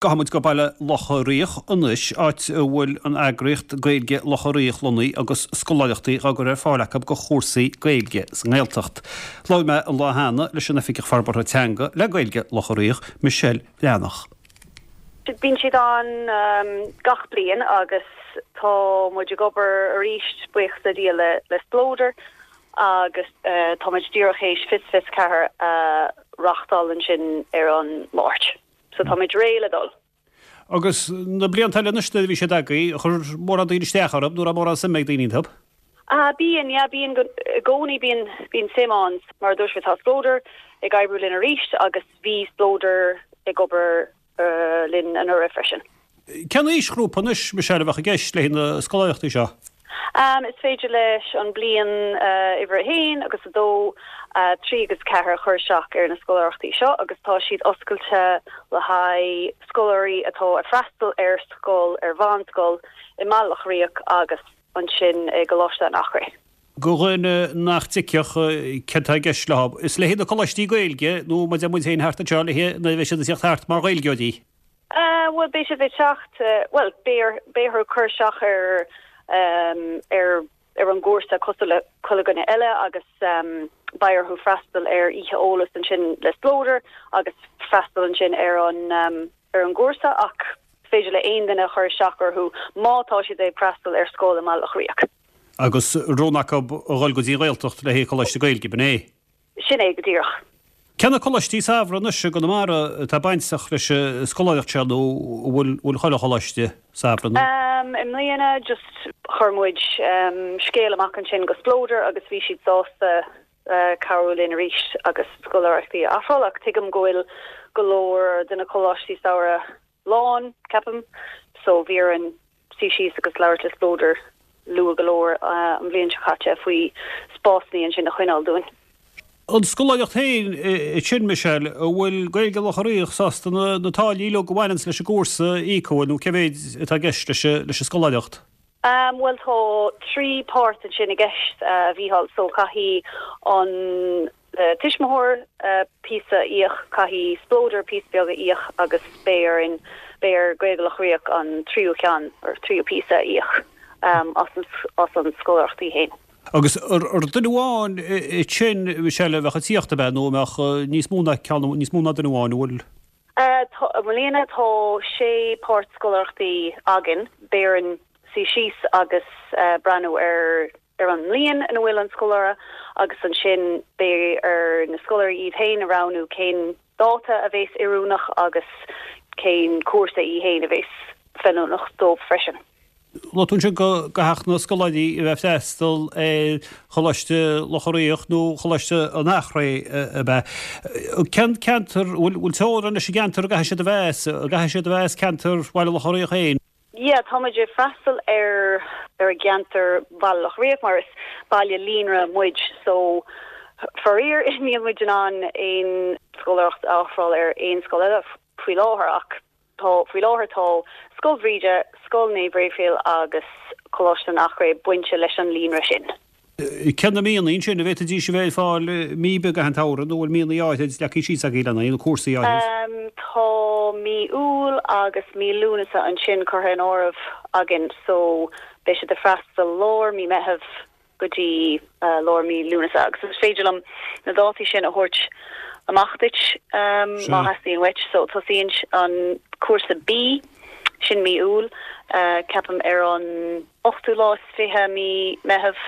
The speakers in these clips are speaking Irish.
Gabhfaidh muid go Baile Locha Riach anois, áit a bhfuil an eagraíocht Gaeilge Locha Riach lonnaithe agus scoláireachtaí á gcur ar fáil acu do chúrsaí Gaeilge sa nGaeltacht. Labhair mé an lá cheana leis an Oifigeach Forbartha Teanga le Gaeilge Locha Riach, Michelle Bhreathnach. Bíonn siad ann gach bliain agus tá muid ag obair arís, buíochas le Dia, le Splódar agus tá muid díreach théis Fios 24 a reáchtáil ansin ar an Máirt. So tá muid réidh le dul. Agus na blianta eile anois nuair a bhí siad agaibh, chuir mórán daoine isteach orthu nó raibh mórán suime ag daoine iontu? Ah, bíonn, yeah, bíonn go, i gcónaí bíonn, bíonn suim ann. Mar a dúirt mé, tá Splódar ag oibriú linn arís agus bhí Splódar ag obair linn anuraidh freisin. Cén aoisghrúpa anois, Michelle, a bheadh i gceist le na scoláireachtaí seo? Is féidir leis an bliain uimhir a haon agus a dó, 3 agus 4 a chur isteach ar na scoláireachtaí seo agus tá siad oscailte le haghaidh scoláirí atá ag freastal ar scoil, ar mheánscoil i mBaile Locha Riach agus ansin i gColáiste an Eachréidh. Do dhuine nach dtuigfeadh céard atá i gceist leo, is le haghaidh na coláistí Gaeilge nó mar a deir muid féin thart anseo, le haghaidh nuair a bheidh siad ag tíocht thart mar Ghaeilgeoirí? Bhuel, beidh siad ag teacht, bhuel, beidh beidh orthu cur isteach ar ar ar an gcúrsa cosúil le chuile dhuine eile agus beidh orthu freastal ar oíche eolais ansin le Splódar agus freastal ansin ar an ar an gcúrsa ach is féidir le aon duine cur isteach orthu má tá siad ag freastal ar scoil i mBaile Locha Riach. Agus rogha acu a dhul go dtí an Ghaeltacht le haghaidh coláiste Gaeilge, b'in é? Sin é go díreach. Cé na coláistí samhraidh anois i gConamara atá bainteach leis an scoláireacht seo nó an bhfuil chuile choláiste samhraidh nó? I mbliana just chuir muid scéal amach ansin go Splódar agus bhí siad sásta cabhrú linn arís agus scoláireachtaí a ofráil ach tuigim go bhfuil go leor de na coláistí samhraidh lán, ceapaim, so bhí orainn suí síos agus labhairt le Splódar luath go leor an bhliain seo caite faoi spásanna ansin a choinneáil dúinn. An scoláireacht féin ansin, Michelle, an bhfuil Gaeilge Locha Riach sásta na táillí uilig a bhaineanns leis an gcúrsa a íoc, an bhfuil, nó cé mhéid atá i gceist leis an scoláireacht? Bhuel tá 3 páirt ansin i gceist, a Mhícheáil, so caithfidh an tuismitheoir píosa a íoc, caithfidh Splódar píosa beag a íoc agus beidh orainn, beidh ar Gaeilge Locha Riach an tríú ceann, or tríú píosa a íoc as an scoláireacht í fhéin. Agus ar duine amháin ansin, Michelle, a bheadh ag tíocht, ab ea, nó an mbeadh níos mó ná ceann, níos mó ná duine amháin, an bhfuil? I mbliana tá sé páirt scoláireachtaí againn. Beidh orainn suí síos agus breathnú ar ar an mbliain ina bhfuil an scoláire agus ansin beidh ar na scoláirí iad féin a roghnú cén dáta a bhéas oiriúnach agus cén cúrsa í féin a bhéas feiliúnach dóibh freisin. Luaigh tú ansin go gcaithfeadh na scoláirí a bheith ag freastal ar Choláiste Locha Riach nó Choláiste an Eachréidh, ab ea? Cén ceantar, bhfuil teorainn leis an gceantar a gcaithfidh siad a bheith as? An gcaithfidh siad a bheith as ceantar Bhaile Locha Riach féin? Yeah, tá muid ag freastal ar ar an gceantar Bhaile Locha Riach mar is baile líonra muid so faraor níl muid in ann aon scoláireacht a ofráil ar aon scoil eile faoi láthair ach Tá, faoi láthair tá Scoil Bhríde, Scoil Naomh Raphael agus Coláiste an Eachréidh bainte leis an líonra sin. Cé na míonna ansin, an bhféadfaidís a bheith ag fáil mí ar bith i gcaitheamh an tsamhraidh nó bhfuil míonna áithrid leagtha síos agaibh lena haghaidh, nó cúrsaí áithrid? Tá mí Iúil agus mí Lúnasa ansin curtha in áireamh againn so beidh siad ag freastal lár mí Meitheamh go dtí lár mí Lúnasa agus is féidir liom na dátaí sin a thabhairt amach duit má theastaíonn uait. So tosaíonn an cúrsa B, sin mí Iúil, ceapaim ar an ochtú lá is 20 mí Meitheamh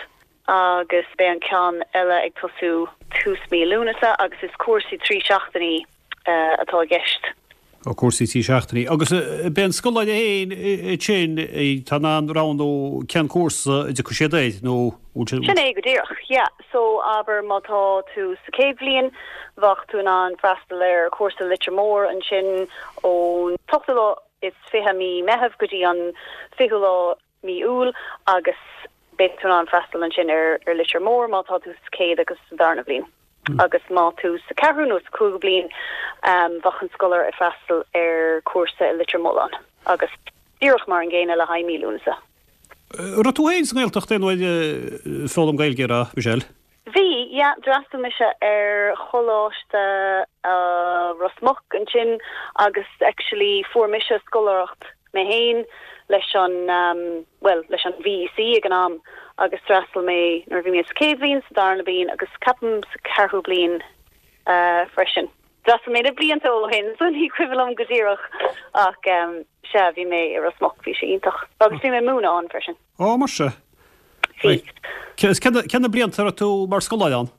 agus beidh an ceann eile ag tosú tús mí Lúnasa agus is cúrsaí 3 seachtainí atá i gceist. Ó, cúrsaí 3 seachtainí. Agus b'é an scoláire féin ansin atá in ann roghnú cén cúrsa a dtiocfaidh siad air, nó bhfuil sé. Sin é go díreach, yeah. So, abair má tá tú sa chéad bhliain, bheadh tú in ann freastal ar chúrsa Leitir Móir ansin ón t-ochtú lá is 20 mí Meitheamh go dtí an 20ú lá mí Iúil agus beidh tú in ann freastal ansin ar Leitir Móir má tá tú sa chéad agus sa darna bhliain. Agus má tú sa ceathrú nó sa cúigiú bliain, bheadh an scoláire ag freastal ar chúrsa i Leitir Mealláin agus díreach mar an gcéanna le haghaidh mí Lúnasa. Raibh tú féin sa nGaeltacht aon uair ag foghlaim Gaeilge, a raibh, Michelle? Bhí, yeah, d'fhreastail mise ar Choláiste Ros Muc ansin agus actually fuair mise scoláireacht mé féin leis an, bhuel, leis an VEC ag an am agus d'fhreastail mé nuair a bhí mé sa chéad bhliain, sa darna bliain agus ceapaim sa ceathrú bliain freisin. D'fhreastail mé na blianta ó shin so ní cuimhin liom go díreach ach sea, bhí mé i Ros Muc, bhí sé iontach agus bhí mé ag múineadh ann freisin. Ó, mar sea. Bhí. Cé na blianta a raibh tú mar scoláire ann?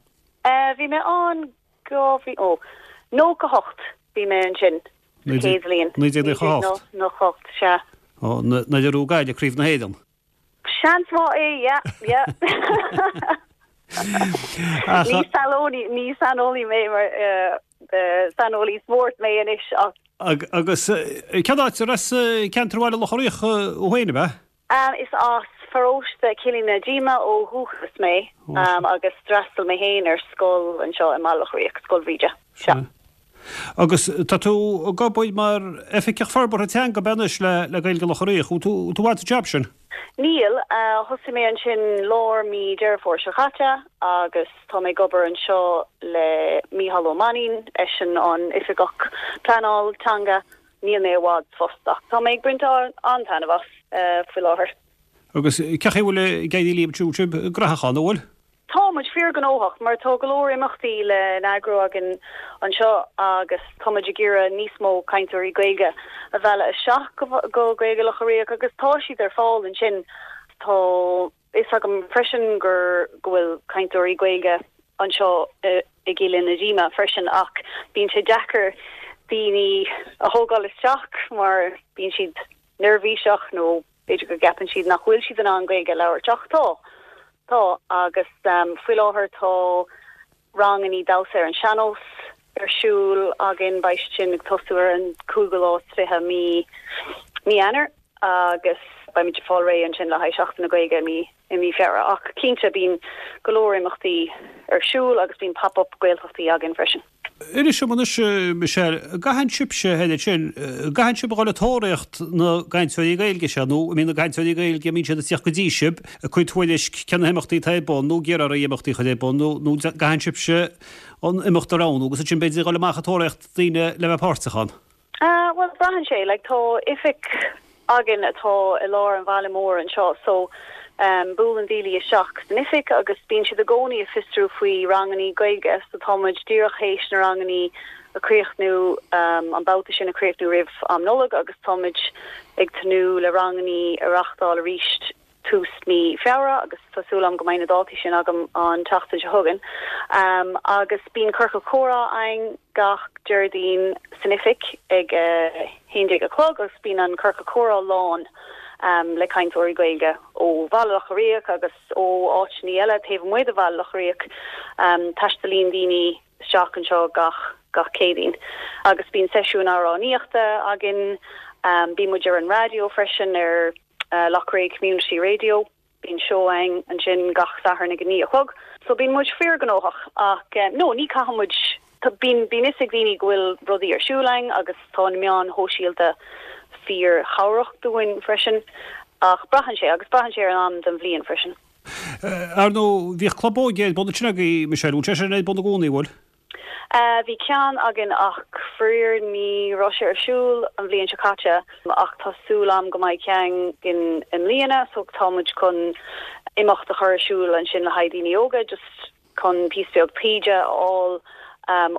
Bhí mé ann 2000, ó, 98 bhí mé ansin, sa chéad bhliain. 1998? 1998, sea. Ó, nuair a bhuaigh Gaillimh Craobh na hÉireann. Seans maith é, yeah, yeah. Ní saineolaí, ní saineolaí mé mar, saineolaí spóirt mé anois ach. Agus cén áit, ar as ceantar Bhaile Locha Riach thú féin, ab ea? Is as paróiste Chillín na Díoma ó dhúchas mé agus d'fhreastail mé féin ar scoil anseo i mBaile Locha Riach, Scoil Bhríde. Sea. Agus tá tú ag obair mar Oifigeach Forbartha Teanga ab ea anois le Gaeilge Locha Riach. Bhfuil tú i bhfad sa jab sin? Níl. Thosaigh mé ansin lár mí Deireadh Fómhair seo caite agus tá mé ag obair anseo le Mícheál Ó Mainnín, eisean an Oifigeach Pleanáil Teanga. Níl mé i bhfad sa phost ach tá mé ag baint an-taitneamh as faoi láthair. Agus cén chaoi a bhfuil ag éirí libh ansiúd sibh gnóthach an bhfuil? Tá muid fíorghnóthach mar tá go leor imeachtaí le n-eagrú againn anseo agus tá muid ag iarraidh níos mó cainteoirí Gaeilge a mhealladh isteach go Gaeilge Locha Riach agus tá siad ar fáil ansin. Tá fhios agam freisin gur go bhfuil cainteoirí Gaeilge anseo i gCillín na Díoma freisin ach bíonn sé deacair daoine a thógáil isteach mar bíonn siad neirbhíseach nó b'fhéidir go gceapann siad nach bhfuil siad in ann Gaeilge a labhairt ach tá, tá agus faoi láthair tá rangannaí damhsa ar an sean-nós ar siúl againn, beidh siad sin ag tosú ar an cúigiú lá is 20 mí mí Eanáir agus beimid ag fáil réidh ansin le haghaidh Seachtain na Gaeilge i mí i mí Feabhra. Ach cinnte bíonn go leor imeachtaí ar siúl agus bíonn pop up Gaeltachtaí againn freisin. Inis dom anois, Michelle, an gcaitheann sibhse thoir ansin, an gcaitheann sibh a dhul ag tóraíocht na gcainteoirí Gaeilge seo, nó an mbíonn na cainteoirí Gaeilge, an mbíonn siad ag tíocht go dtí sibh, ag cur tuairisc cé na himeachtaí atá ar bun, nó ag iarraidh oraibh imeachtaí a chur ar bun, nó nó an gcaitheann sibhse an imeacht a roghnú agus ansin b'fhéidir a dhul amach ag tóraíocht daoine le bheith páirteach ann? Bhuel, braitheann sé. Like, tá oifig againn atá i lár an bhaile mór anseo so buaileann daoine isteach san oifig agus bíonn siad i gcónaí ag fiosrú faoi rangannaí Gaeilge so tá muid díreach théis na rangannaí a chríochnú, an babhta sin a chríochnú roimh am Nollag agus tá muid ag tnúth le rangannaí a reachtáil arís tús mí Feabhra agus tá súil agam go mbeidh na dátaí sin agam an tseachtain seo chugainn. Agus bíonn ciorcal comhrá againn gach Déardaoin san oifig ag a 11 a chlog agus bíonn an ciorcal comhrá lán le cainteoirí Gaeilge ó Bhaile Locha Riach agus ó áiteanna eile taobh amuigh de Bhaile Locha Riach. Taistealaíonn daoine isteach anseo gach gach Céadaoin agus bíonn seisiúin amhránaíochta againn. Bíonn muid ar an raidió freisin ar Loughrea Community Radio. Bíonn seó againn ansin gach Satharn ag a 9 a chlog. So bíonn muid fíorghnóthach ach no, ní caithfidh muid, bíonn bíonn fhios ag daoine go bhfuil rudaí ar siúl againn agus tá na meáin shóisialta fíorchabhrach dúinn freisin ach braitheann sé agus braitheann sé ar an am den bhliain freisin. Ar ndóigh, bhíodh club óige ar bun ansin agaibh, Michelle, bhfuil sé sin ar bun i gcónaí, bhfuil? Bhí ceann againn ach faraor ní raibh sé ar siúl an bhliain seo caite ach tá súil a'm go mbeidh ceann againn i mbliana so tá muid chun imeacht a chur ar siúl ansin le haghaidh daoine óga just chun píosa beag taighde a fháil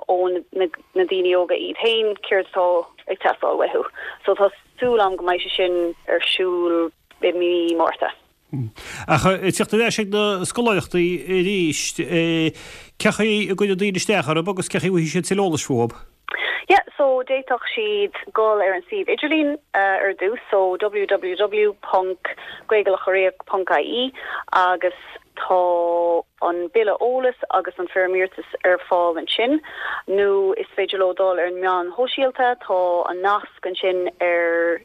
ó na daoine óga iad féin céard atá ag teastáil uathu. So tá súil a'm go mbeidh sé sin ar siúl i mí Márta. Ach ag tíocht ar ais ag na scoláireachtaí arís, cé chaoi a gcuireann daoine isteach orthu agus cé chaoi a bhfaighidh siad tuilleadh eolais fúthu? Yeah, so d'fhéadfadh siad dul ar an suíomh idirlín ar dtús, so www.gaeilgelochariach.ie agus tá an bille eolais agus an foirm iarratais ar fáil ansin, nó is féidir leo dul ar na meáin shóisialta, tá an nasc ansin ar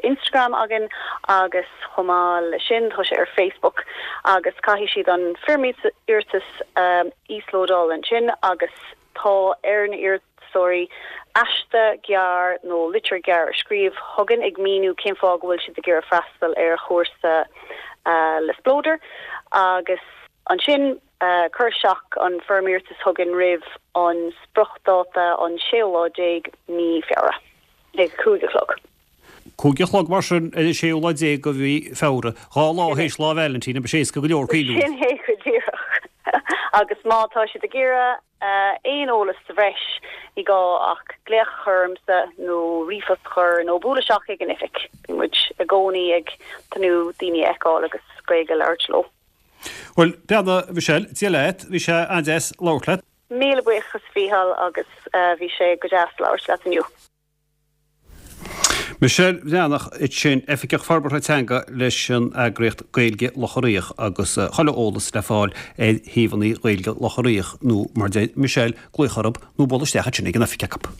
Instagram againn agus chomh maith le sin tá sé ar Facebook agus caithfidh siad an foirm iarratais a íoslódáil ansin agus tá ar na iarratasóirí aiste gearr nó litir gearr a scríobh chugainn ag míniú cén fáth go bhfuil siad ag iarraidh freastal ar chúrsa le Spleodar agus ansin. Cur isteach an foirm iarratais chugainn roimh an spriocdháta an séú lá déag mí Feabhra ag 5 a chlog. 5 a chlog mar sin ar an séú lá déag de mhí Feabhra, 2 lá théis Lá Vailintín, beidh sé éasca go leor cuimhniú. Sin é go díreach. Agus má tá siad ag iarraidh aon eolas sa bhreis, ní gá ach glaoch a chur ormsa nó ríomhphost a chur nó bualadh isteach ag an oifig. Bíonn muid i gcónaí ag tnúth daoine a fheiceáil agus Gaeilge a labhairt leo. Bhuel, beannacht a Mhichelle, Dia leat, bhí sé an-deas labhairt leat. Míle buíochas a Mhícheáil agus bhí sé go deas labhairt leat inniu. Michelle Bhreathnach ansin, Oifigeach Forbartha Teanga leis an eagraíocht Gaeilge Locha Riach agus chuile eolas le fáil ar shuíomhanna Ghaeilge Locha Riach nó mar deir Michelle, glaoch orthu nó buail isteach ansin ag an oifig acu.